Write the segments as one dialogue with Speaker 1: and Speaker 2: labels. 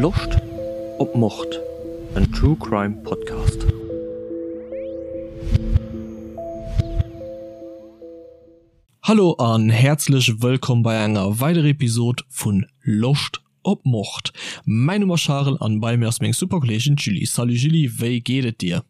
Speaker 1: Loscht op Mord? En True Crime Podcast. Hallo an häerzlech wëllkomm bei enger weiderer Episode vun Loscht op Mord. Mäin Numm ass Charel an bei mir ass meng super Kolleegin d'Julie. Salut Julie, wéi geet et dir?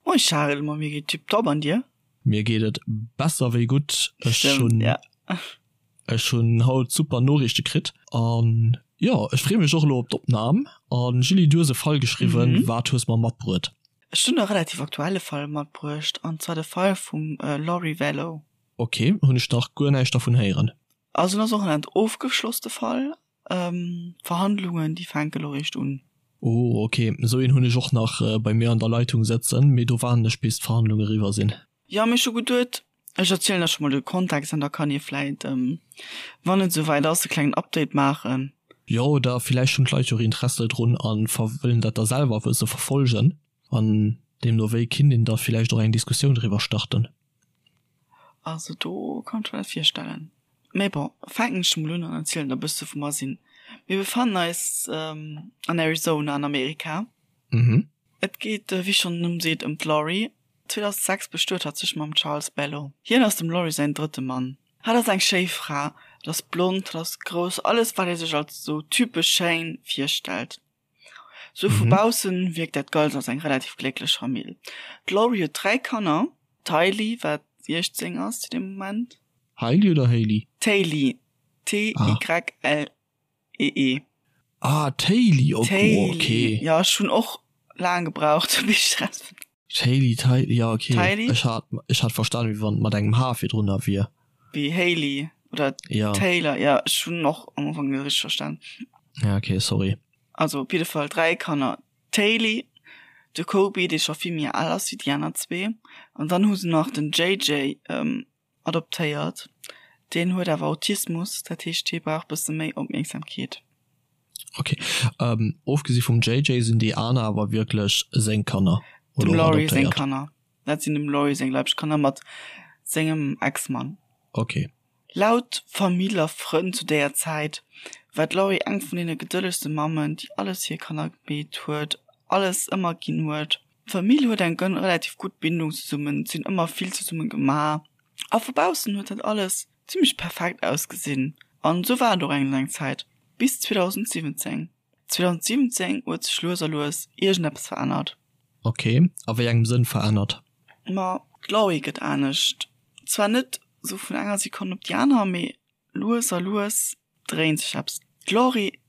Speaker 2: Moin Charel, ma mir geet tiptop an dir?
Speaker 1: Mir geet et besser wéi gutt. Ech hunn ech hunn haut super Noriichte kritt an jo ech free mech och elo op d'Opnam. An Julie du hues e Fall geschriwwen, wat hues mer matbruet?
Speaker 2: Ech hunn e relativ aktuelle Fall matbruecht an zwar de Fall vum Lori Vallow.
Speaker 1: Ok, hunn ech nach guer näischt dervun héieren.
Speaker 2: Also en ass och en ofgeschlosste Fall, D'Verhandlungen déi fänke lo réischt un.
Speaker 1: Oh ok, esou een hunn ech och nach bei mir an der Leitung sëtzen, mee do waarden ech bis d'Verhandlung eriwwer sinn.
Speaker 2: Jo, mee ech hu geduet ech erzielen der scho mol de Kontext an da kann ee vläit, wann et esouwäit ass, e klengen Update maachen.
Speaker 1: Jo, oder villäicht hunn d'Leit jo och Interesse drun a wëllen dat da selwer e bësse verfollegen an deemno wéi kinnt een da villäicht och eng Diskussioun driwwer starten.
Speaker 2: Also do kann ech mer dat virstellen. Mee bon, fänken ech mol un an erzielen der e bësse wou mer sinn. Mir befannen eis an Arizona an Amerika.
Speaker 1: Mhm.
Speaker 2: Et geet, wéi schonn den Numm seet, ëm d'Lori. 2006 bestuet hatt sech mam Charles Bello. Hien ass dem Lori säin drëtte Mann. Hatt ass eng schéi Fra, hatt ass blond, hatt ass grouss, alles wat ee sech als sou typesch schéin virstellt. Sou vu baussen wierkt dat Ganzt als eng relativ glécklech Famill. D'Laurie huet 3 Kanner, d'Hailey, wat 16 ass zu deem Moment.
Speaker 1: Hailey oder Hailey?
Speaker 2: D'Hailey, T-Y-L-E-E.
Speaker 1: Ah, d'Hailey, ok.
Speaker 2: D'Hailey, jo, ech hunn och laang gebraucht, bis ech erausfonnt.
Speaker 1: D'Hailey, d'Hailey, jo, ok. D'Hailey. Ech hat, ech hat verstanen, wéi wann et mat engem H virdrunner wier.
Speaker 2: Wéi Hailey oder
Speaker 1: Ja.
Speaker 2: Taylor, jo, ech hunn och am Ufank net richteg verstan.
Speaker 1: Ja, ok, sorry.
Speaker 2: Also op jidde Fall 3 Kanner, d'Hailey, de Kobe, dee scho vill méi al ass wéi déi aner zwee, an dann hu se nach den JJ adoptéiert. Deen huet awer Autismus, dat heescht hie brauch bësse méi Opmierksamkeet.
Speaker 1: Ok, ofgesi vum JJ sinn déi aner awer wierklech seng Kanner
Speaker 2: oder Dem Laurie seng Kanner. Dat sinn dem Laurie seng leibsch Kanner mat sengem Ex-Mann.
Speaker 1: Ok.
Speaker 2: Laut Famill a Frënn zu déier Zäit war d'Laurie eng vun deene gedëllegste Mammen, déi alles fir hir Kanner gemeet huet, alles ëmmer ginn huet. D'Famill huet eng relativ gutt Bindung zesummen, si hunn ëmmer vill zesumme gemaach a vu baussen huet dat alles zimmlech perfekt ausgesinn. An esou war et och eng laang Zäit, bis 2017. 2017 huet sech lues a lues iergendeppes verännert.
Speaker 1: Ok, a wéi engem Sënn verännert?
Speaker 2: Ma d'Laurie gëtt anescht. Zwar net sou vun enger Sekonn op déi aner, mee lues a lues dréint sech eppes. D'Laurie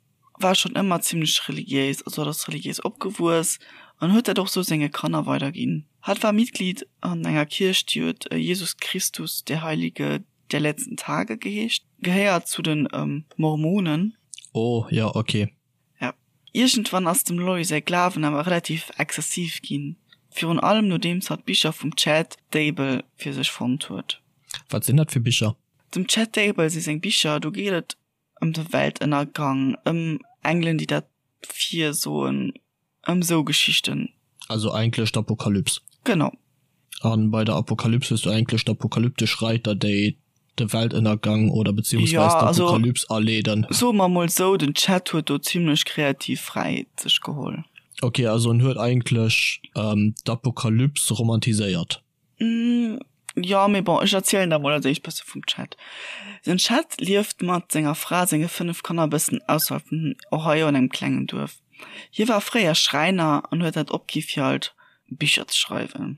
Speaker 2: war schonn ëmmer zimmlech religiéis, also hatt ass religiéis opgewuess an huet dat och sou senge Kanner weiderginn. Hatt war Mitglied an enger Kierch, déi huet Jesus Christus der Heilige der letzten Tage geheescht, gehéiert zu de Mormonen.
Speaker 1: Oh jo, ok.
Speaker 2: Ja. Iergendwann ass dem Lori säi Glawen awer relativ exzessiv ginn, virun allem nodeems hatt Bicher vum Chad Daybell fir sech fonnt huet.
Speaker 1: Wat sinn dat fir Bicher?
Speaker 2: Dem Chad Daybell si seng Bicher, do geet et ëm de Weltënnergang, ëm Engelen déi dat virsoen, ëm sou Geschichten.
Speaker 1: Also eigentlech d'Apokalyps.
Speaker 2: Genau.
Speaker 1: An bei der Apokalyps hues du eigentlech d'apokalyptesch Reiter déi de Weltënnergang oder beziehungsweis d'Apokalyps aleeden.
Speaker 2: Soe mer mol sou, den Chad huet do zimlech kreativ Fräiheet sech geholl.
Speaker 1: Ok, also en huet eigentlech d'Apokalyps romantiséiert.
Speaker 2: Jo, mee bon, ech erzielen der mol als éischt bësse vum Chad. Den Chad lieft mat senger Fra a senge 5 Kanner e bëssen ausserhalb vun Ohio an engem klengen Duerf. Hie war fréier Schräiner an huet dat opgi fir halt Bicher ze schreiwen.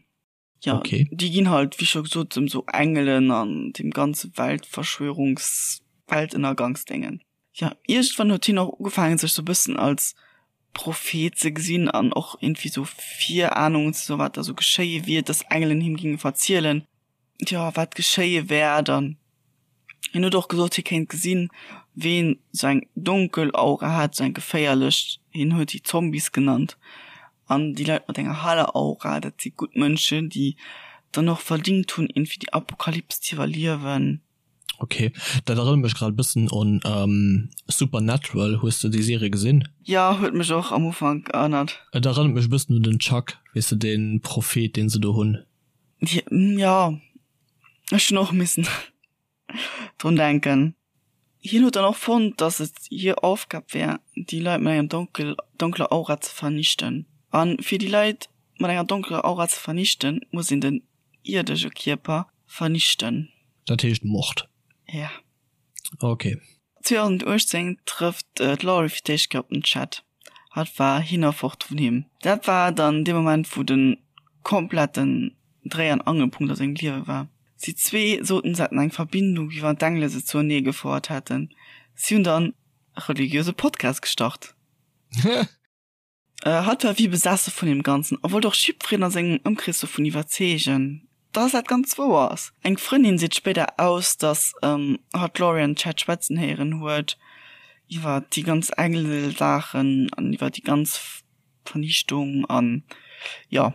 Speaker 2: Jo,
Speaker 1: Okay.
Speaker 2: déi ginn halt, wéi scho gesot, ëm sou Engelen an deem ganze Weltverschwörungs-, Weltënnergangsdéngen. Jo, iergendwann huet hien och ugefaangen, sech sou e bëssen als Prophet ze gesinn an och irgendwie sou Virahnungen ze soen, wat da sou geschéie wier, dass Engelen him ginge verzielen, jo, wat geschéie wäert. An hien huet och gesot, hie kéint gesinn, ween sou eng donkel Aura hat, sou eng geféierlech, hien huet déi Zombies genannt, an déi Leit mat enger heller Aura, dat si gutt Mënschen, déi dann och verdingt hunn, irgendwie déi Apokalyps ze iwwerliewen.
Speaker 1: Ok, dat erënnert mech grad e bëssen un Supernatural. Hues de déi Serie gesinn?
Speaker 2: Jo, huet mech och am Ufank erënnert.
Speaker 1: Et erënnert mech e bëssen un den Chuck, weess de, dee Prophet, deen se do hunn.
Speaker 2: Jo, ech hunn och missen drun denken. Hien huet dann och fonnt, dass et hir Aufgab wär, déi Leit mat enger donkel donkeler Aura ze vernichten. A fir déi Leit mat enger donkeler Aura ze vernichten, muss een den ierdege Kierper vernichten.
Speaker 1: Dat heescht Mord?
Speaker 2: Ja.
Speaker 1: Ok.
Speaker 2: 2018 trëfft d'Laurie fir d'éischt Kéier op den Chad. Hatt war hin a fort vun him. Dat war dann dee Moment, wou de kompletten Dréi an Angelpunkt a sengem Liewe war. Si zwee soten, se hätten eng Verbindung, wéi wann d'Engele se zuenee gefouert hätten. Si hunn dann e religiöse Podcast gestart. Hatt war wéi besesse vun deem Ganzen a wollt och jiddwereen a sengem Ëmkrees dovun iwwerzeegen, dass dat Ganzt wouer ass. Eng Frëndin seet spéider aus, dass hatt d'Laurie an Chad schwätzen héieren huet iwwer déi ganz Engel-Saachen an iwwer déi ganz Vernichtung an jo.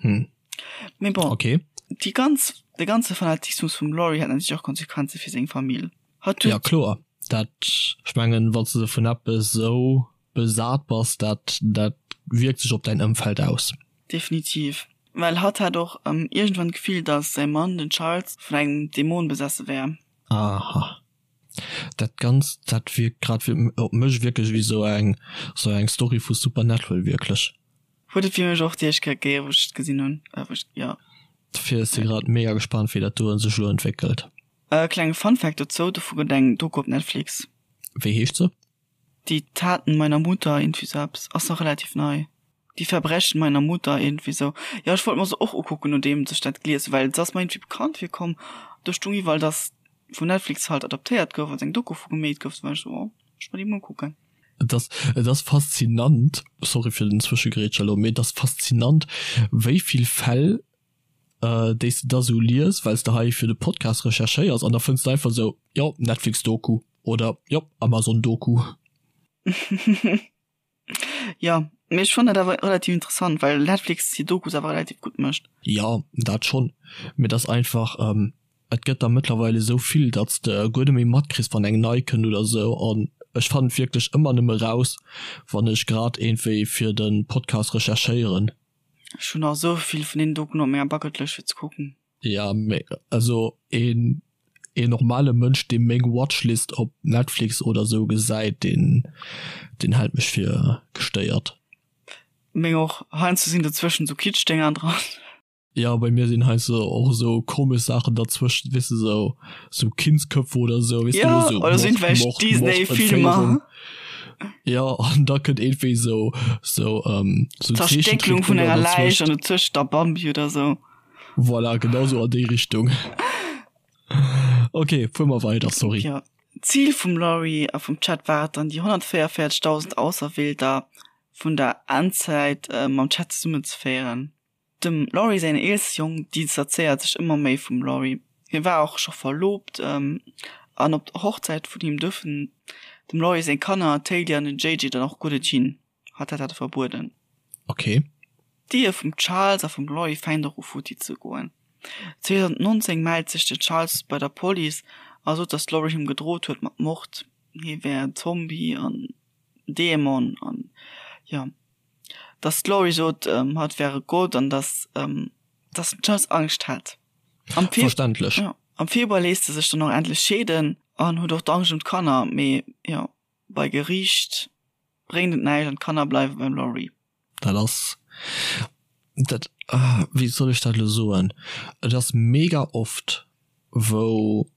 Speaker 2: Mee bon, déi ganz, de ganze Fanatismus vum Laurie hat natierlech och Konsequenze fir seng Famill.
Speaker 1: Hatt huet. Jo kloer, dat, ech mengen, wann s de vun eppes esou besat bass, dat dat wierkt sech op däin Ëmfeld aus.
Speaker 2: Definitiv, well hatt hat och iergendwann d'Gefill, datt säi Mann, den Charles, vun engem Dämon besesse wär.
Speaker 1: Aha. Dat Ganzt, dat wierkt grad op mech wierklech wéi sou eng sou eng Story vu Supernatural, wierklech.
Speaker 2: Huet et fir mech och déi éischt Kéier gegeben, wou ech et gesinn hunn, wou ech, jo.
Speaker 1: Dofir si grad mega gespannt, wéi dat do sech elo entwéckelt.
Speaker 2: E klenge Funfact dozou, dovu gëtt eng Doku op Netflix.
Speaker 1: Wéi heescht se?
Speaker 2: Die Taten meiner Mutter, iergendwéi sou eppes. Ass nach relativ nei. Die Verbrechen meiner Mutter, iergendwéi sou. Jo, ech wollt mer se och ukucken, nodeems ech dat gelies hunn, well se ass mer iergendwéi bekannt virkomm. Do stung iwwerall, dass vun Netflix halt adaptéiert gouf, also eng Doku vu gemeet gouf. Du war ech sou, oh, ech mer déi mol ukucken.
Speaker 1: Et ass, et ass faszinant, sorry fir den Zwëschegrätsch elo, mee et ass faszinant, wéi vill Fäll, déi s de da sou lies, well s de hei fir de Podcast recherchéiers, an da fënns de einfach sou, jo, Netflix-Doku. Oder jo, Amazon Doku.
Speaker 2: Jo, mee ech fannen dat awer relativ interessant, well Netflix hir Dokus awer relativ gutt mécht.
Speaker 1: Jo, dat schonn, mee et ass einfach, et gëtt der mëttlerweil esou vill, datt s de guer net méi matkriss, wann eng nei kënnt oder esou. An ech fannen et wierklech ëmmer nëmme raus, wann ech grad iergendwéi fir de Podcast recherchéieren.
Speaker 2: Ech hunn nach esou vill vun deenen Dokuen op menger Bucketlëscht fir ze kucken.
Speaker 1: Ja, mee also een een normale Mënsch dee meng Watchlist op Netflix oder sou gesäit, deen deen hält mech fir gestéiert.
Speaker 2: Meng och. Heiansdo sinn dozwëschen sou Kitschdénger dran.
Speaker 1: Ja, bei mir sinn heiansdo och esou komesch Saachen derzwëschen, weess de, sou sou Kindsköpfe oder sou, weess de,
Speaker 2: Ja, sou oder sou
Speaker 1: Mord,
Speaker 2: irgendwelch
Speaker 1: Mord, Mord,
Speaker 2: Disney-Filmer.
Speaker 1: Entféierung. Ja, an da kënnt iergendwéi sou sou ähm
Speaker 2: sou Zerstécklung vun
Speaker 1: Zeechentrickdénger
Speaker 2: enger Läich
Speaker 1: derzwëscht.
Speaker 2: an dozwëscht da Bambi oder sou.
Speaker 1: Voilà, genau sou an déi Richtung. Ok, fuer mer weider, sorry.
Speaker 2: Jo, d'Zil vum Laurie a vum Chad war et dann, déi 144.000 Auserwielter vun der Endzäit mam Chad zesummenzeféieren. Dem Laurie säin eelste Jong distanzéiert sech ëmmer méi vum Laurie. Hie war och scho verloobt an op der Hochzäit vun him duerfen dem Laurie seng Kanner, d'Hailey an den JJ, dann och guer net hin. Hatt hat dat verbueden.
Speaker 1: Ok.
Speaker 2: D'Ehe vum Charles a vum Laurie fänkt och u futti ze goen. 2019 mellt sech den Charles bei der Police a sot, datt d'Laurie him gedrot huet mat Mord, hie wär en Zombie an Dämon an jo, datt d'Laurie sot, hatt wär e Gott an datt datt den Charles Angscht hat.
Speaker 1: Am Fe
Speaker 2: Verständlech. Jo, am Februar léisst e sech dann och endlech scheeden an huet och d'Angscht ëm d'Kanner, mee jo, bei Geriicht bréngt et näischt an d'Kanner bleiwe beim Laurie.
Speaker 1: Dat ass, dat, wéi soll ech dat elo soen, et ass mega oft wou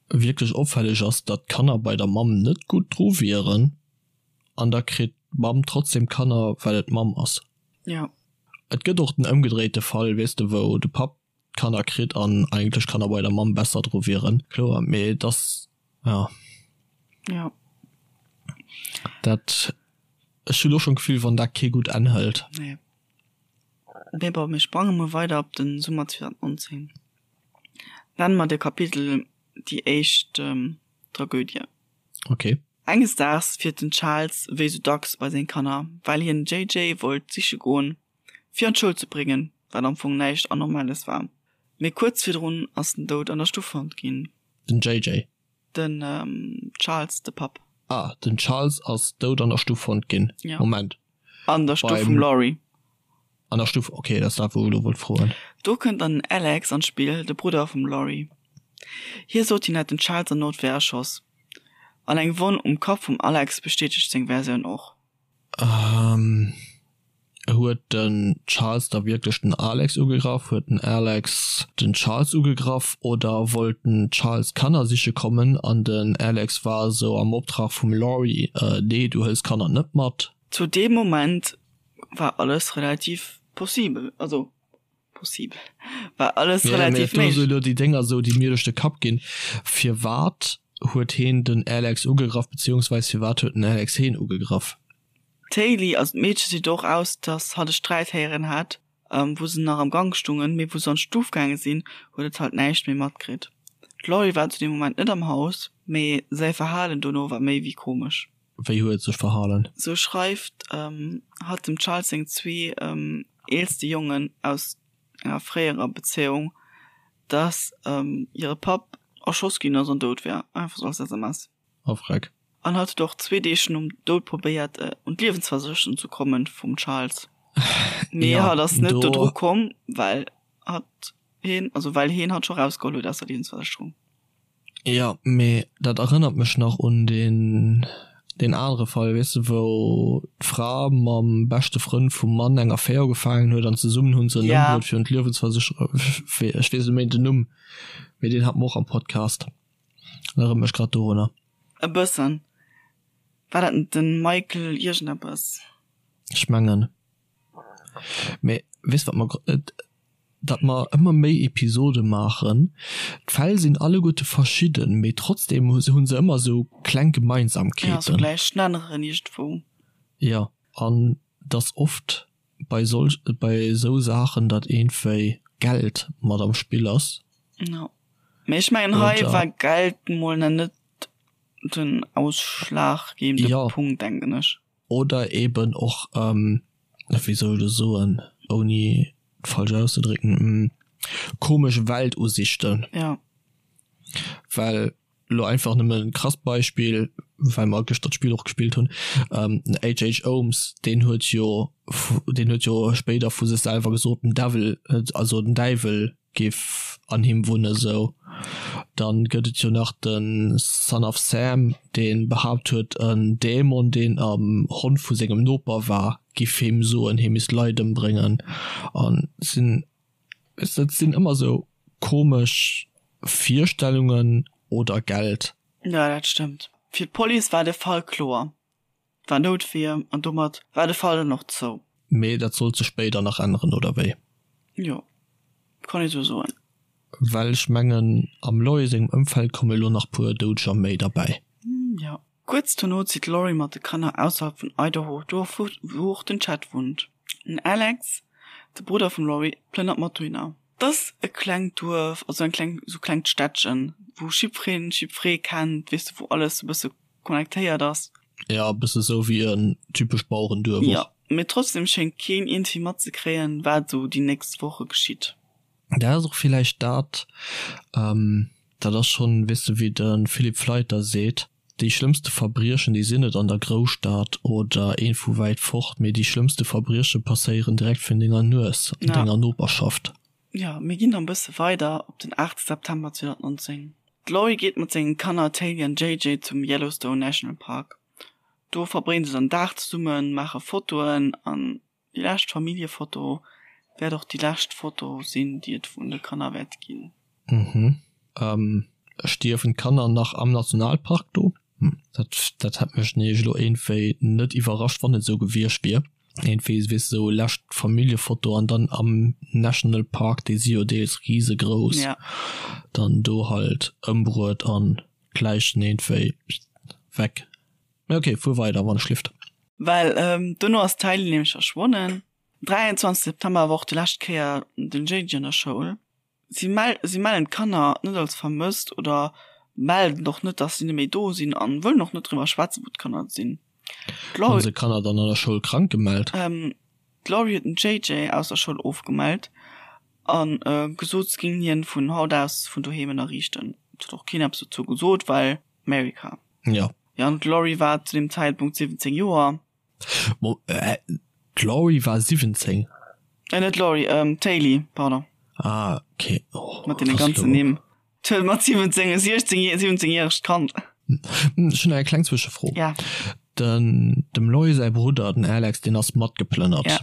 Speaker 1: wierklech opfälleg ass, datt d'Kanner bei der Mamm net gutt dru wieren an da kritt d'Mamm trotzdem d'Kanner well et d'Mamm ass.
Speaker 2: Jo.
Speaker 1: Et gëtt och den ëmgedréite Fall, weess de, wou de Papp d'Kanner kritt an eigentlech d'Kanner bei der Mamm besser dru wieren, kloer, mee et ass, jo.
Speaker 2: Jo.
Speaker 1: Dat, ech hunn och schonn d'Gefill, wann dat kee gutt Enn hëlt.
Speaker 2: Nee. Mee bon, mir sprange mol weider op de Summer 2019. Nenne mer de Kapitel Déi éischt Tragödie.
Speaker 1: Ok.
Speaker 2: Enges Daags fiert den Charles wéi sou dacks bei seng Kanner, well hien den JJ wollt siche goen, fir an d'Schoul ze bréngen, wat am Fong näischt Anormales war. Mee kuerz virdrun ass en dout an der Stuff fonnt ginn.
Speaker 1: Den JJ?
Speaker 2: Den Charles, de Papp.
Speaker 1: Ah, den Charles ass dout an der Stuff fonnt ginn.
Speaker 2: Ja.
Speaker 1: Moment.
Speaker 2: An der Stuff vum Laurie.
Speaker 1: An der Stuff, okay, dat ass dat wou ech elo wollt froen.
Speaker 2: Do kënnt dann den Alex an d'Spill, de Brudder vum Laurie. Hie sot hien hätt den Charles an Noutwehr erschoss. An eng Wonn um Kapp vum Alex bestätegt seng Versioun och.
Speaker 1: Huet den Charles da wierklech den Alex ugegraff? Huet den Alex den Charles ugegraff? Oder wollt den Charles Kanner siche kommen an den Alex war esou am Optrag vum Laurie, Nee, du hëls Kanner net mat?
Speaker 2: Zu deem Moment war alles relativ possibel, also possibel, war alles relativ
Speaker 1: méiglech. Mee elo déi Dénger esou, déi mir duerch de Kapp ginn, Firwat huet heen den Alex ugegraff, beziehungsweis firwat huet den Alex heen ugegraff?
Speaker 2: D'Hailey, also d'Meedche seet och aus, dass hatt e Sträit héieren hätt, wou se nach am Gank stungen, mee wou se an d'Stuf gaange sinn, huet et halt näischt méi matkritt. D'Laurie war zu deem Moment net am Haus, mee säi Verhalen dono war méi wéi komesch.
Speaker 1: Wéi huet et sech verhalen?
Speaker 2: Sou schreift hatt dem Charles seng zwee eelste Jongen aus enger fréierer Bezéiung, dass hire Papp erschoss ginn ass an dout wär, einfach sou als SMS.
Speaker 1: Oh freck.
Speaker 2: An hatt huet och zwee Deeg nom Doud probéiert un d'Liewensversécherung ze kommen vum Charles, mee hatt ass net dodru komm, well hatt heen, also well heen hatt scho rausgeholl huet aus der Liewensversécherung.
Speaker 1: Jo, mee dat erënnert mech nach un deen deen anere Fall, weess de, wou d'Fra mam beschte Frënd vum Mann eng Affär ugefaangen huet an zesummen hu se en ëmbruet fir un d'Liewensversécherung, ech weess net méi den Numm, mee deen hate mer och am Podcast. Erënnert mech grad dorunner.
Speaker 2: E bëssen. War dat net den Michael iergendeppes?
Speaker 1: Ech mengen. Mee weess wat mer, datt mer ëmmer méi Episode maachen, d'Fäll sinn alleguerte verschidden, mee trotzdem hu se ëmmer esou kleng Gemeinsamkeeten.
Speaker 2: Ja, sou gläich Schnenneren iergendwou.
Speaker 1: Jo, an dass oft bei solch, bei esou Saachen, datt iergendwéi Geld mat am Spill ass.
Speaker 2: Jo. Mee ech mengen hei war Geld mol nach net den ausschlaggebende
Speaker 1: ja.
Speaker 2: Punkt, denken ech.
Speaker 1: Oder eben och, ähm, wéi soll ech soen, ouni et falsch auszedrécken, komesch Weltusichten.
Speaker 2: Ja.
Speaker 1: Well elo einfach nëmmen e krasst Beispill, well mer gëschter d'Spill och gespillt hunn, den HH. Holmes, deen huet jo, deen huet jo spéider vu sech selwer gesot, den Devil, also den Däiwel géif an him wunne sou. Dann gëtt et jo nach de Son of Sam, dee behaapt huet, en Dämon, deen am Hond vu sengem Noper war, giff him soen, hie misst Leit ëmbréngen. An sinn, weess de, et sinn ëmmer sou komesch Virstellungen oder Geld.
Speaker 2: Jo, dat stëmmt. Fir d'Police war de Fall kloer. War Noutwier an domat war de Fall dann och zou.
Speaker 1: Mee dat sollt sech spéider nach änneren, oder wéi?
Speaker 2: Jo, kann ee sou soen.
Speaker 1: Well ech mengen, am Laurie sengem Ëmfeld komme elo nach puer Doudeger méi derbäi.
Speaker 2: Jo. Kuerz dono zitt d'Laurie mat de Kanner ausserhalb vun Idaho, do wou och den Chad wunnt. Den Alex, de Brudder vum Laurie, plënnert mat dohinner. 't ass e klengt Duerf, also eng kleng, sou klengt Städtchen, wou jiddwereen jiddweree kennt, weess de, wou alles e bësse connectéiert ass.
Speaker 1: Ja, e bësse sou wéi en typescht Bauerenduerf och.
Speaker 2: Jo, mee trotzdem schéngt keen iergendwéi matzekréien, wat esou déi nächst Woche geschitt.
Speaker 1: Dat ass och villäicht dat, dat ass schonn, weess de, wéi de Philippe Fleiter seet, Déi schlëmmste Verbriechen, déi sinn net an der Grousstad oder een vu wäit fort, mee déi schlëmmste Verbrieche passéieren direkt virun denger Nues, an denger Noperschaft.
Speaker 2: Jo, mir ginn dann bësse weider op den 8 September 2019. D'Laurie geet mat sengen Kanner Taylee an JJ zum Yellowstone National Park. Do verbréngen se dann Dag zesummen, maache Fotoen an déi lescht Familljefoto wäert och déi lescht Foto sinn, déi et vun de Kanner wäert ginn.
Speaker 1: Mhm. Stierwen d'Kanner nach am Nationalpark do? Hm, dat, dat hätt mech nämlech elo iergendwéi net iwwerrascht, wann et esou gewiescht wier. Iergendwéi, weess de, esou lescht Familljefoto an dann am National Park, déi si jo deels risegrouss,
Speaker 2: Ja.
Speaker 1: dann do halt ëmbruet an d'Läichen iergendwéi weg. Mee ok, fuer weider, wann ech lift.
Speaker 2: Well dono ass d'Hailey nämlech verschwonnen. 23 September war och déi lescht Kéier den JJ an der Schoul. Si si mellen d'Kanner net als vermësst oder melden och net, dass si net méi do sinn an wëllen och net driwwer schwätzen, wou d'Kanner sinn.
Speaker 1: Hunn se d'Kanner dann an der Schoul krank gemellt?
Speaker 2: D'Laurie huet den JJ aus der Schoul ofgemellt a gesot, se géing hien vun haut aus vun doheem ënnerriichten. Et huet och keen eppes dozou gesot, well America.
Speaker 1: Jo.
Speaker 2: Jo, an d'Laurie war zu deem Zäitpunkt 17 Joer.
Speaker 1: Mo, äh, d'Laurie war 17?
Speaker 2: Äh, net d'Laurie, ähm, d'Hailey, pardon.
Speaker 1: Ah, okay.
Speaker 2: Oh, Mat deene ganzen Nimm. D'huet mat 17, 16, 17-järegt Kand.
Speaker 1: Ech hunn eng kleng Zwëschefro.
Speaker 2: Ja.
Speaker 1: Den, dem Loy säi Brudder, den Alex, deen ass matgeplënnert.
Speaker 2: Ja.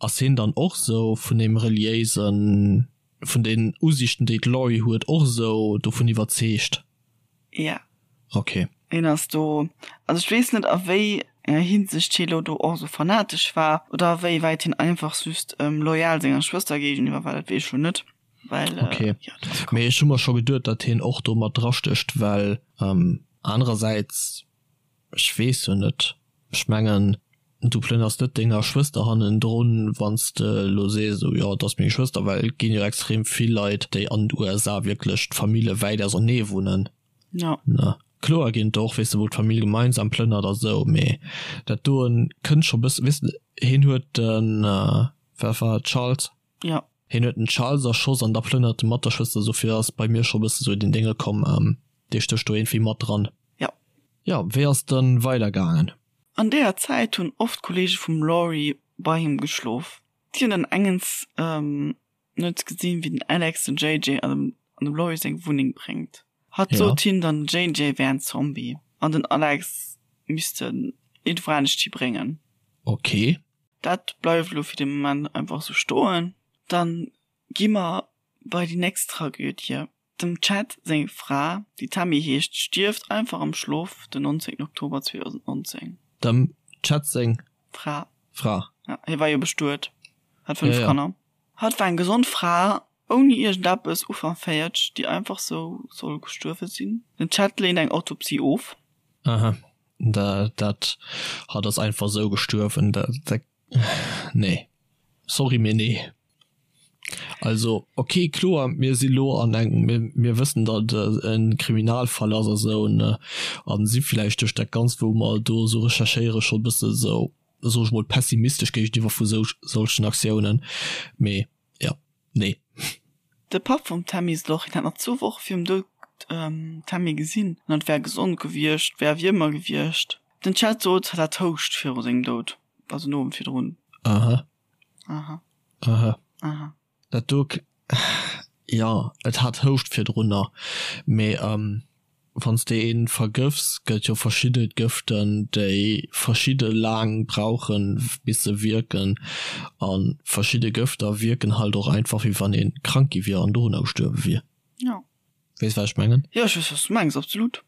Speaker 1: Ass hien dann och sou vun deem reliéisen, vun den Usiichten, déi d'Laurie huet, och esou dovun iwwerzeegt?
Speaker 2: Ja.
Speaker 1: Ok.
Speaker 2: Hien ass do, also ech weess net a wéi enger Hinsicht hie lo do och esou fanatesch war oder a wéi wäit hien einfach just loyal senger Schwëster géigeniwwer war, dat weess ech lo net, well
Speaker 1: Ok. jo, dat ass Mee ech hu mer scho geduet, datt hien och do mat drastécht, well anerersäits, ech weess jo net, ech mengen, du plënners net denger Schwëster hannendrun, wann s de elo sees, esou, jo, et ass meng Schwëster, well et ginn jo extrem vill Leit, déi an den USA wierklech d'Famille wäit ausernee wunnen.
Speaker 2: Ja.
Speaker 1: Ne? Kloer ginn et och, weess de, wou d'Famill gemeinsam plënnert a sou, mee dat doen kënnt scho bëssen, weess de, hien huet den, wat war et, Charles?
Speaker 2: Ja.
Speaker 1: Hien huet den Charles erschoss an da plënnert e mat der Schwëster, dofir ass bei mir scho bësse sou den Dénge komm, dee stécht do iergendwéi mat dran.
Speaker 2: Ja.
Speaker 1: Jo, wéi ass dann weider gaangen?
Speaker 2: An deeër Zäit hunn oft Kolleege vum Laurie bei him geschlof. Si hunn dann engens Nuets gesinn, wéi den Alex den JJ an dem an dem Laurie seng Wunneng bréngt. Hatt sot him dann, den JJ wär en Zombie an den Alex misst en iergendwou anescht hi bréngen.
Speaker 1: Ok.
Speaker 2: Dat bleift elo fir de Moment einfach sou stoen. Dann gi mer bei déi nächst Tragödie. Dem Chad seng Fra, déi Tammy heescht, stierft einfach am Schlof den 19 Oktober 2019.
Speaker 1: Dem Chad seng
Speaker 2: Fra.
Speaker 1: Fra.
Speaker 2: Ja, hie war jo bestuet, hat 5 Kanner. Hatt war eng gesond Fra, ouni iergendeppes, Ufank 40, déi einfach sou soll gestuerwe sinn. Den Chad leent eng Autopsie of.
Speaker 1: Aha, dat, hatt ass einfach sou gestuerwen, dat, nee, sorry, mee nee. Also ok, kloer, mir si lo an engem, mir, mir wëssen, datt et e Kriminalfall ass a sou, ne, a si villäicht duerch dat Ganzt, wou mer do esou recherchéiere scho e bësse sou, soe ech mol, pessimistesch géigeniwwer vu sou solchen Aktiounen, mee jo, nee.
Speaker 2: De Papp vum Tammy Sloch, hien hat nach zwou Woche virum Doud d'Tammy gesinn an et wär gesond gewiescht, wär wéi ëmmer gewiescht. Den Chad sot, hatt hat Houscht viru sengem Doud, also den Owend virdrun.
Speaker 1: Aha.
Speaker 2: Aha.
Speaker 1: Aha.
Speaker 2: Aha.
Speaker 1: Dat do, jo, et hat Houscht virdrunner, mee wann s de een vergëfts, gëtt jo verschidde Gëften, déi verschidde laang brauchen, bis se wierken, a verschidde Gëfter wierken halt och einfach, wéi wann ee krank gi wier an dorunner gestuerwe wier.
Speaker 2: Jo.
Speaker 1: Weess wat ech mengen?
Speaker 2: Jo, ech weess wat s du mengs, absolut.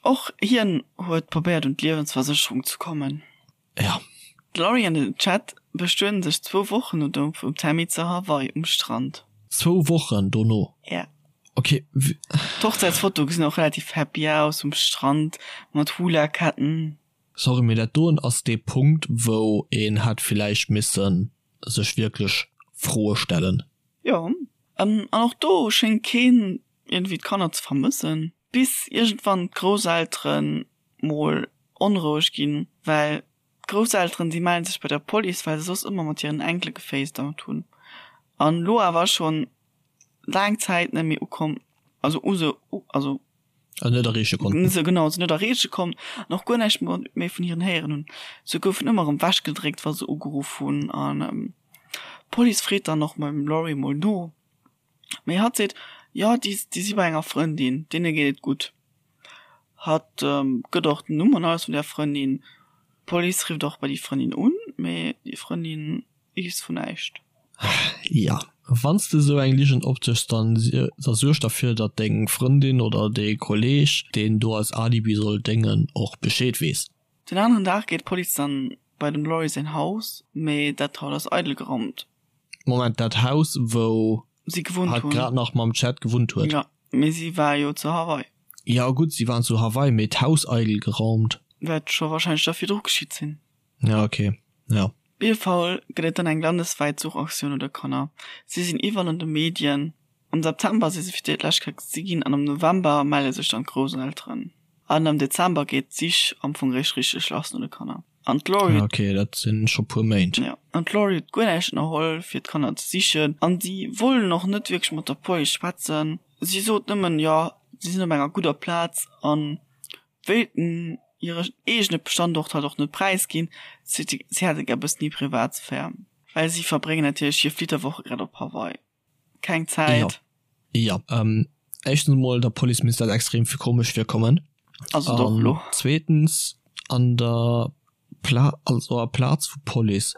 Speaker 2: Och hien huet probéiert un d'Liewensversécherung ze kommen.
Speaker 1: Ja.
Speaker 2: D'Laurie an den Chad bestueden sech zwou Wochen no Doud vum Tammy zu Hawaii um Strand.
Speaker 1: Zwou Wochen dono?
Speaker 2: Ja.
Speaker 1: Ok.
Speaker 2: D'Hochzäitsfotoe gesinn och relativ happy aus, um Strand mat Hula-Ketten.
Speaker 1: Sorry, mee dat doen ass dee Punkt, wou een hätt villäicht missen sech wierklech Froe stellen.
Speaker 2: Jo, an och do schéngt keen iergendwéi d'Kanner ze vermëssen, bis iergendwann d'Grousselteren mol onroueg ginn, well d'Grousselteren déi mellen sech bei der Police, well se soss ëmmer mat hiren Enkele gefacetimed hunn an elo awer schonn laang Zäit net méi ukomm, also u se, also
Speaker 1: Also net erreeche
Speaker 2: konnten. Se genau, se net erreeche konnt an och guer näischt méi vun hiren héieren hunn. Se goufen ëmmer erëm wechgedréckt, wa se ugeruff hunn an d'Police freet dann och beim Laurie mol no. Mee hatt seet, jo, déi déi si bei enger Frëndin, deene geet et gutt. Hatt gëtt och den Numm an alles vun där Frëndin. D'Police rifft och bei déi Frëndin un, mee déi Frëndin weess vun näischt.
Speaker 1: Jo, wann s de esou eng Ligen opdëschs, dann da suerg derfir, datt deng Frëndin oder dee Kolleeg, deen do als Alibi soll déngen, och Bescheed weess.
Speaker 2: Den aneren Dag geet d'Police dann bei dem Laurie säin Haus, mee dat Haus ass eidel geraumt.
Speaker 1: Moment, dat Haus wou
Speaker 2: si gewunnt
Speaker 1: hatt grad nach mam Chad gewunnt huet?
Speaker 2: Jo, mee si war jo zu Hawaii.
Speaker 1: Jo gutt, si waren zu Hawaii, mee d'Haus eidel geraumt.
Speaker 2: Wäert scho wahrscheinlech da virdru geschitt sinn.
Speaker 1: Ja ok, ja.
Speaker 2: Op jidde Fall gëtt et dann eng landeswäit Suchaktioun no de Kanner. Si sinn iwwerall an de Medien. Am September si se fir d'éischt Kéier gesi ginn an am November melle sech dann d'Grousselteren. An am Dezember geet d'Sich am Fong réischt richteg lass no de Kanner. An d'Laurie
Speaker 1: huet. Ok, dat sinn scho puer Méint.
Speaker 2: Jo, an d'Laurie huet guer näischt ënnerholl fir d'Kanner ze sichen. An si wollen och net wierklech mat der Police schwätzen. Si sot nëmmen, jo, si sinn op enger gudder Plaz an wéilten hire eegene Standort halt och net präisginn. Si hätte gär e bëssen hir Privatsphär, well si verbréngen natierlech hir Flitterwoche grad op Hawaii. Keng Zäit.
Speaker 1: Jo, jo. Éischtens emol, der Police misst dat extrem vill komesch virkommen.
Speaker 2: Also doch
Speaker 1: elo. Zweetens, an der Pla also aplaz vu Police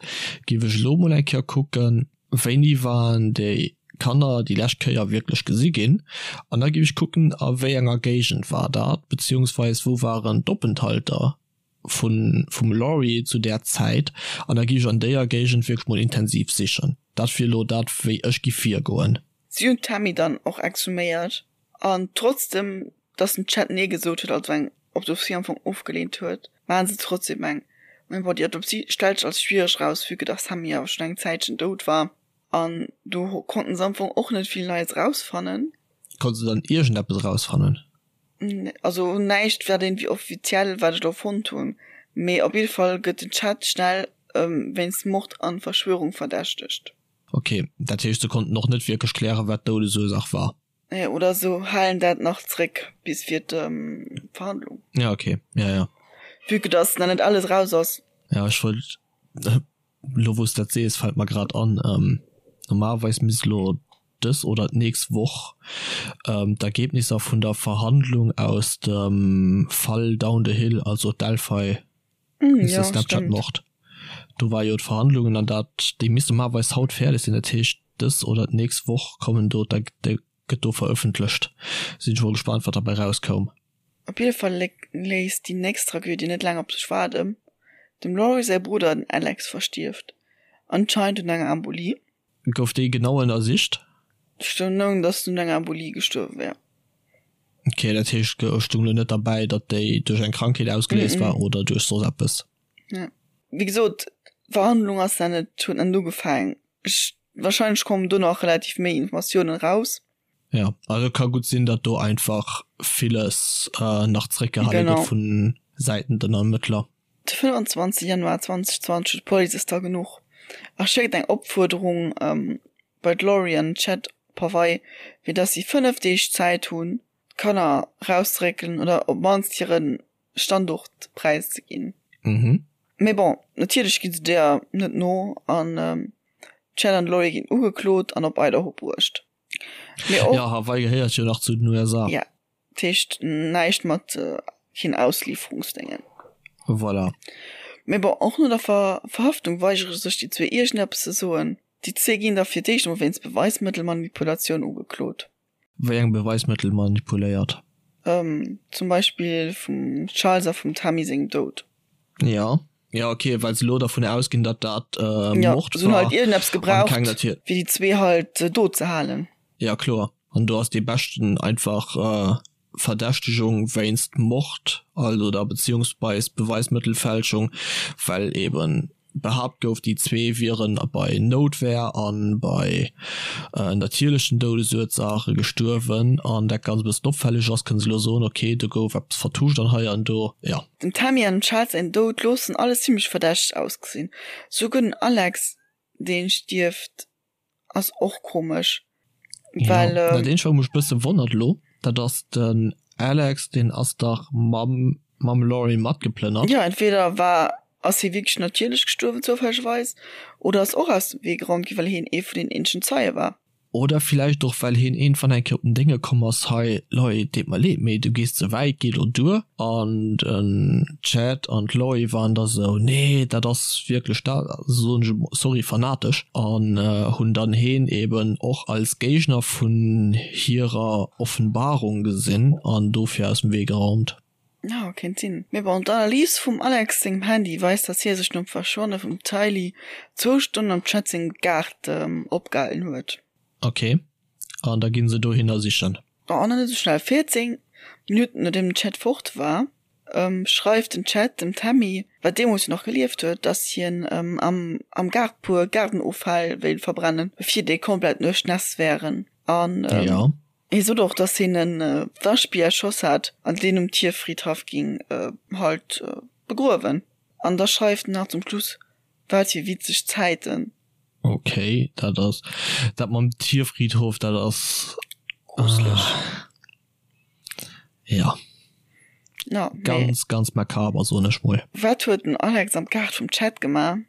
Speaker 1: géif ech elo mol eng Kéier kucken, wéini waren déi Kanner déi lescht Kéier wierklech gesi ginn? An da géif ech kucken, a wéi enger Géigend war dat, beziehungsweis wou waren d'Openthalter vun vum Laurie zu där Zäit? An da géif ech an déier Géigend wierklech mol intensiv sichen. Dat wier elo dat, wéi ech giff virgoen.
Speaker 2: Si hunn d'Tammy dann och exhuméiert An trotzdem dass den Chad nee gesot huet, also eng Autopsie am Fong ofgeleent huet, maachen se trotzdem eng. Mee bon, déi Autopsie stellt sech als schwiereg raus, vue que dass Sammy awer schonn eng Zäitchen dout war. An do konnten se am Fong och net vill Neies rausfannen.
Speaker 1: Konnte se dann iergendeppes rausfannen?
Speaker 2: Also näischt wat iergendwéi offiziell, wat ech do fonnt hunn. Mee op jidde Fall gëtt den Chad schnell wéinst Mord an Verschwörung verdächtegt.
Speaker 1: Ok, dat heescht se konnten och net wierklech klären, wat d'Doudesursaach war?
Speaker 2: Nee, oder se halen dat nach zréck bis fir d'Verhandlung.
Speaker 1: Ja, okay. Ja, ja.
Speaker 2: Vue que dass nach net alles raus ass.
Speaker 1: Ja, ech wollt, elo wou s de dat sees, fält mer grad an, normalerweis misst elo dës oder d'nächst Woch d'Ergebnisser vun der Verhandlung aus dem Fall Down the Hill, also Delphi,
Speaker 2: mm,
Speaker 1: Snapchat-Mord, do war jo d'Verhandlungen an dat, déi misst normalerweis haut fäerdeg sinn, dat heescht dës oder d'nächst Woch kommen do, da gëtt do verëffentlecht. Sinn ech mol gespaant wat derbäi rauskoum.
Speaker 2: Op jidde Fall léisst déi nächst Tragödie net laang op sech waarden, Dem Laurie säi Brudder, den Alex, verstierft anscheinend un enger Embolie.
Speaker 1: Gouf déi genau ënnersicht?
Speaker 2: Stoung, datt en un enger Embolie gestuerwe wär.
Speaker 1: Ok, dat heescht et stoung lo net derbäi, datt déi duerch eng Krankheet ausgeléist war oder duerch soss eppes?
Speaker 2: Nee. Wéi gesot, d'Verhandlung ass nach net, huet nach net ugefaangen. Ech, wahrscheinlech kommen do nach relativ méi Informatiounen raus.
Speaker 1: Ja, also ka gutt sinn, datt do einfach villes nach zréckgehale gëtt vu Säiten den Ermëttler.
Speaker 2: De 25 Januar 2020 huet d'Police es da genuch a schéckt eng Opfuerderung bei d'Laurie an den Chad op Hawaii, fir dass si 5 Deeg Zäit hunn, d'Kanner erauszeréckelen oder op d'mannst hire Standort präiszeginn. Mee bon, natierlech gi se deeër net no an d'Chad an d'Laurie ginn ugeklot an op Idaho bruecht.
Speaker 1: Mee och. Jo, Hawaii gehéiert jo nach zu den USA.
Speaker 2: Ja, dat heescht näischt mat keen Auslieferungsdéngen.
Speaker 1: Voilà.
Speaker 2: Mee bon, och no der Verhaftung weigere sech déi zwee iergendeppes ze soen. Déi zwee ginn da fir d'éischt emol wéinst Beweismëttelmanipulatioun ugeklot.
Speaker 1: Wéi eng Beweismëttel manipuléiert?
Speaker 2: Zum Beispill vum Charles a vum Tammy sengem Doud.
Speaker 1: Jo. Jo, ok, well se elo dervun ausginn, datt dat
Speaker 2: Mord war. Jo, se hunn halt iergendeppes gebraucht, fir déi zwee halt do ze halen.
Speaker 1: Ja, kloer. An do ass dee beschten einfach Verdächtegung wéinst Mord, also oder beziehungsweis Beweismëttelfälschung, well eben Behaapt gouf, déi zwee wieren bei Noutwehr a bei natierlechen Doudesursaache gestuerwen. An dat Ganzt e bëssen opfälleg ass, kënne se elo soen, ok, do gouf eppes vertuscht an hei an do. Jo.
Speaker 2: Dem Tammy an dem Charles säin Doud loossen alles zimmlech verdächteg ausgesinn. Souguer den Alex, dee stierft, Ass och komesch,
Speaker 1: well. Jo, dat eenzegt wat mech bësse wonnert elo, dat ass den Alex, deen ass dach mam mam Laurie matgeplënnert.
Speaker 2: Jo, entweder war ass hie wierklech natierlech gestuerwen zoufällegerweis, oder ass och aus dem Wee geraumt ginn, well hien ee vun den eenzegen Zeie war.
Speaker 1: Oder villäicht och well hien iergendwann eng Kéier op den Dénge komm ass, hei Leit, deet mer leed, mee du gees ze wäit, géi lo duer. An den Chad an d'Laurie waren da sou, nee, dat ass wierklech dat, soen ech emol, sorry, fanatesch, an hunn dann heen eben och als Géigner vun hirer Offenbarung gesinn an dofir aus dem Wee geraumt.
Speaker 2: Jo, kéint sinn. Mee bon, d'Analys vum Alex sengem Handy weist, dass hie sech nom Verschwanne vum Tylee zwou Stonnen am Chad sengem Gaart opgehalen huet.
Speaker 1: Ok, an da ginn se dohinner sichen.
Speaker 2: Oh, nach net esou schnell. 14 Minutten nodeem den Chad fort war, schreift den Chad dem Tammy, wat deemools jo nach gelieft huet, dass hien am am Gaart puer Gaardenoffäll wéilt verbrennen, bevir déi komplett duerchnässt wären. An hie sot och, dass hien e Waschbier erschoss hat an deen um Tierfridhaff ging halt begruewen. An da schreift en nach zum Schluss, Wat fir witzeg Zäiten.
Speaker 1: Ok, dat ass dat mam Tierfriedhof, dat ass
Speaker 2: gruseleg.
Speaker 1: Ja.
Speaker 2: Ja,
Speaker 1: ganz ganz makaber soen ech mol.
Speaker 2: Wat huet den Alex am Gaart vum Chad gemaach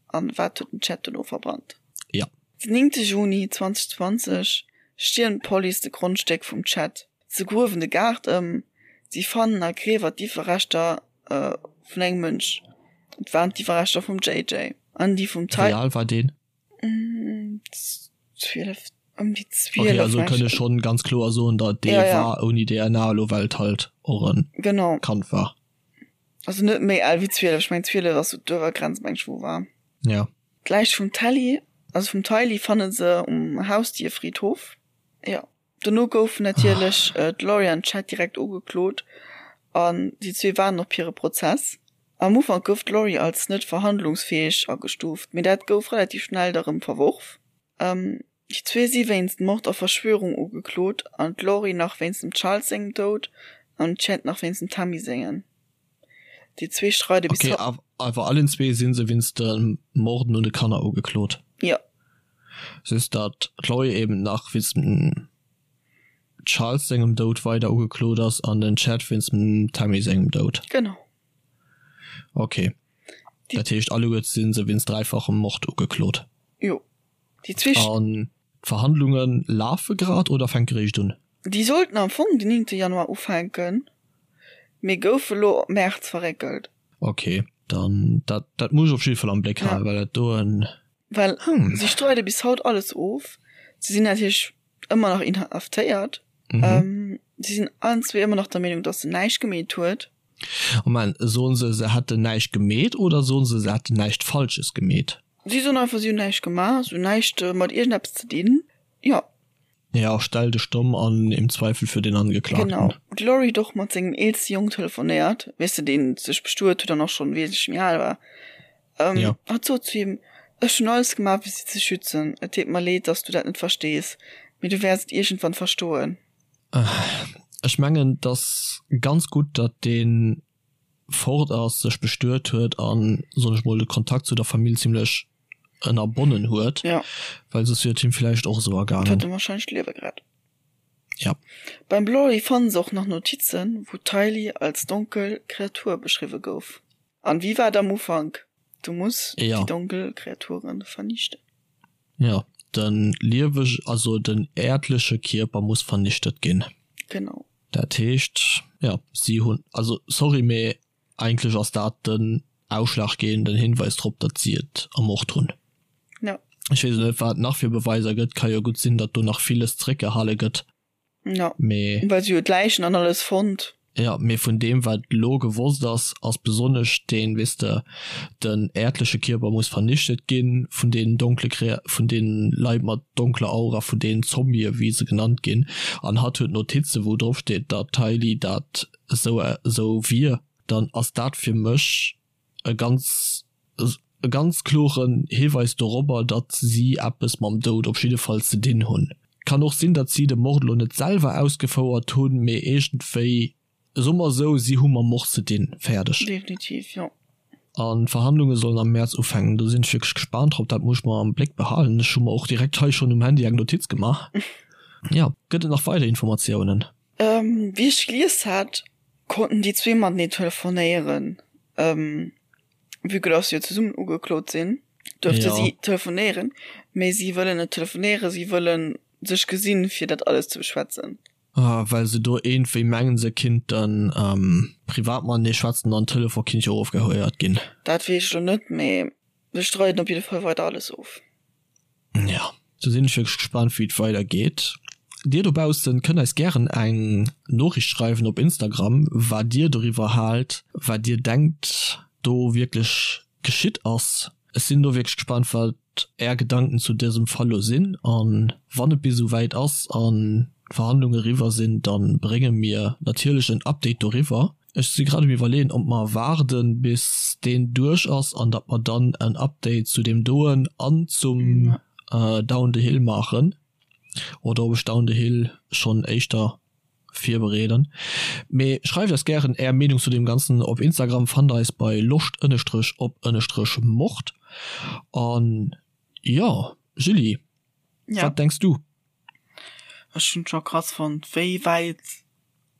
Speaker 2: an wat huet den Chad dono verbrannt?
Speaker 1: Ja.
Speaker 2: Den 9 Juni 2020 stiermt d'Police de Grondstéck vum Chad. Se gruewen de Gaart ëm. Si fannen a Griewer d'Iwwerreschter vun engem Mënsch. Et waren d'Iwwerreschter vum JJ an déi vum
Speaker 1: Ty. Wéi al war deen?
Speaker 2: 12, ëm déi
Speaker 1: 12. Okay, also kënne schonn ganz kloer soen, datt dee ja, ja. war ouni DNA elo, well et halt och en
Speaker 2: genau.
Speaker 1: Kand war.
Speaker 2: Also net méi al wéi 12, ech meng 12 ass sou d'Uewergrenz meng ech wou war.
Speaker 1: Ja.
Speaker 2: D'Läich vum Telly, also vum Tylee fanne se um Hausdierfriedhof. Ja. Dono goufen natierlech d'Lori an d'Chad direkt ugeklot an déi zwee waarden op hire Prozess. Am Ufank gouf d'Lori als net verhandlungsfäeg agestuuft, mee dat gouf relativ schnell da rëm verworf. Déi zwee si wéinst Mord a Verschwörung ugeklot an d'Lori nach wéinst dem Charles sengem Doud an den Chad nach wéinst dem Tammy sengen. Déi zwee streide
Speaker 1: bis haut. Ok, awer allen zwee si se wéinst de Morden un de Kanner ugeklot?
Speaker 2: Jo.
Speaker 1: Just datt d'Lori eben nach wéinst dem Charles sengem Doud weider ugeklot ass an den Chad wéinst dem Tammy sengem Doud.
Speaker 2: Genau.
Speaker 1: Ok. Dat heescht alleguer si se wéinst dräifachem Mord ugeklot?
Speaker 2: Jo.
Speaker 1: Déi zwee. An d'Verhandlunge lafe grad oder fänke réischt un?
Speaker 2: Déi sollten am Fong den 9 Januar ufänken, mee goufe lo op Mäerz verréckelt.
Speaker 1: Ok, dann dat dat muss ech op jidde Fall am Bléck halen, well dat do en.
Speaker 2: Well si streide bis haut alles of. Si sinn natierlech ëmmer nach inhaftéiert. Si sinn allen zwee ëmmer nach der Meenung, datt se näischt gemeet huet.
Speaker 1: Moment, soen se, se hätten näischt gemeet oder soen se, se hätten näischt Falsches gemeet?
Speaker 2: Si soen einfach, si hunn näischt gemaach, si hunn näischt mat iergendeppes ze dinn. Jo.
Speaker 1: Jo, stell dech domm an im Zweifel für den Angeklagten.
Speaker 2: Genau. D'Laurie huet och mat sengem eelste Jong telefonéiert, weess de, deen sech bestuet huet an och schonn wesentlech méi al war.
Speaker 1: Jo.
Speaker 2: Hatt sot zu him, Ech hunn alles gemaach, fir si ze schützen. Et deet mer leed, dass du dat net verstees, mee du wäerts et iergendwann verstoen.
Speaker 1: Ech mengen, et ass ganz gutt, datt dee fort ass, sech bestuet huet an, soen ech mol, de Kontakt zu der Famill zimlech ënnerbonnen huet,
Speaker 2: ja.
Speaker 1: well soss wier et him villäicht och esou
Speaker 2: ergaangen. Et huet em wahrscheinlech d'Liewe gerett.
Speaker 1: Ja.
Speaker 2: Beim Blorry fannen se och nach Notizen, wou d'Tylee als donkel Kreatur beschriwwe gouf. An wéi war et am Ufank? Du muss
Speaker 1: ja.
Speaker 2: déi donkel Kreaturen vernichten.
Speaker 1: Ja, den lieweg, also den äerdleche Kierper muss vernichtet ginn.
Speaker 2: Genau.
Speaker 1: Dat heescht, ja, si hunn, also sorry, mee Eigentlech ass dat den ausschlaggebenden Hinweis drop, datt si et ermort hunn.
Speaker 2: Ja.
Speaker 1: Ech weess net, wat et nach fir Beweiser gëtt. Ka jo gutt sinn, datt do nach villes zeréckgehale gëtt.
Speaker 2: Ja.
Speaker 1: Mee.
Speaker 2: Well si jo d'Läichen an alles fonnt.
Speaker 1: Ja, mee vun deem, wat elo gewosst ass, ass besonnesch deen, weess de, den äerdleche Kierper muss vernichtet ginn vun deenen donkle Krea-, vun deenen Leit mat donkler Aura, vun deenen Zombien, wéi se genannt ginn. An hatt huet Notizen, wou drop steet, datt d'Hailey dat esou esou wier, dann ass dat fir mech e ganz e ganz kloren Hiweis dorobber, datt si eppes mam Doud op jidde Fall ze dinn hunn. Kann och sinn, datt si de Mord elo net selwer ausgefouert hunn, mee iergendwéi, soe mer esou, si hu mam Mord ze dinn. Fäerdeg.
Speaker 2: Definitiv, jo.
Speaker 1: An d'Verhandlunge sollen am Mäerz ufänken. Do sinn ech wierklech gespaant drop. Dat muss ech mer am Bléck behalen. Ech hu mer och direkt hei schonn um Handy eng Notiz gemaach. Jo, gëtt et nach weider Informatiounen?
Speaker 2: Wéi ech gelies hat, konnten déi zwee matenee telefonéieren. Vue que dass se jo zesummen ugeklot sinn, duerfte si telefonéieren, mee si wëllen net telefonéieren, si wëlle sech gesinn, fir dat alles ze beschwätzen.
Speaker 1: Ah, well se do iergendwéi mengen, se kinnten privat matenee schwätzen an Telefon kinnt jo ofgehéiert ginn.
Speaker 2: Dat weess ech elo net, mee se streiden op jidde Fall weider alles of.
Speaker 1: Jo, do sinn ech wierklech gespaant wéi et weider geet. Dir dobaussen kënnt eis gären eng Noriicht schreiwen op Instagram wat dir doriwwer haalt, wat dir denkt do wierklech geschitt ass. Ech sinn do wierklech gespaant wat är Gedanken zu dësem Fall lo sinn an wann et bis esou wäit ass an d'Verhandlungen eriwwer sinn, dann brénge mir natierlech en Update doriwwer. Ech si grad um iwwerleeën ob mer waarden bis deen duerch ass an datt mer dann en Update zu deem doen an zum Down the Hill maachen oder ob ech Down the Hill schonn éischter virbereeden. Mee schreift eis gären är Meenung zu deem ganzen op Instagram, fannt eis bei loscht ënnestrech op ënnestrech mord. An jo Julie, wat denks du?
Speaker 2: Ech hunn et scho krass fonnt wéi wäit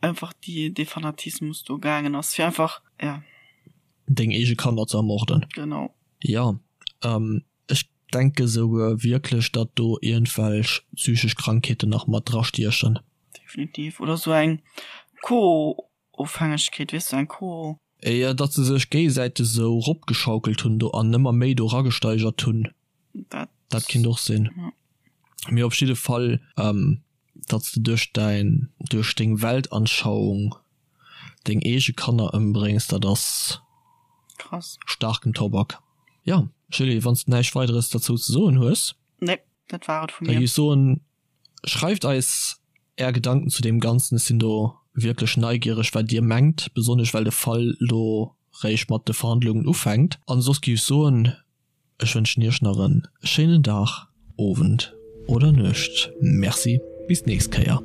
Speaker 2: einfach déi dee Fanatismus do gaangen ass fir einfach ja.
Speaker 1: Deng eege Kanner ze ermorden.
Speaker 2: Genau.
Speaker 1: Jo, ech denke souguer wierklech, datt do iergendwelch psychesch Krankheeten nach mat drastiechen.
Speaker 2: Definitiv. Oder sou eng Co. Ofhängegkeet, weess du, eng Co.
Speaker 1: Jo, datt se sech géigesäiteg esou ropgeschaukelt hunn do an ëmmer méi do eragesteigert hunn.
Speaker 2: Dat.
Speaker 1: Dat kinnt och sinn. Mee op jidde Fall, datt s de duerch däin, duerch deng Weltanschauung deng eege Kanner ëmbréngs, dat ass.
Speaker 2: Krass.
Speaker 1: Staarken Tobak. Jo, Julie, wann s de näischt Weideres derzou ze soen hues.
Speaker 2: Nee, dat war et vu
Speaker 1: mir. Da géif ech soen, Schreift eis är Gedanken zu deem Ganzen, ech sinn do wierklech neigiereg wat dir mengt, besonnesch well de Fall lo réischt mat de Verhandlungen ufänkt. An soss géif ech soen, ech wënschen iech nach en schéinen Dag, Owend oder Nuecht. Merci, bis d'nächst Kéier.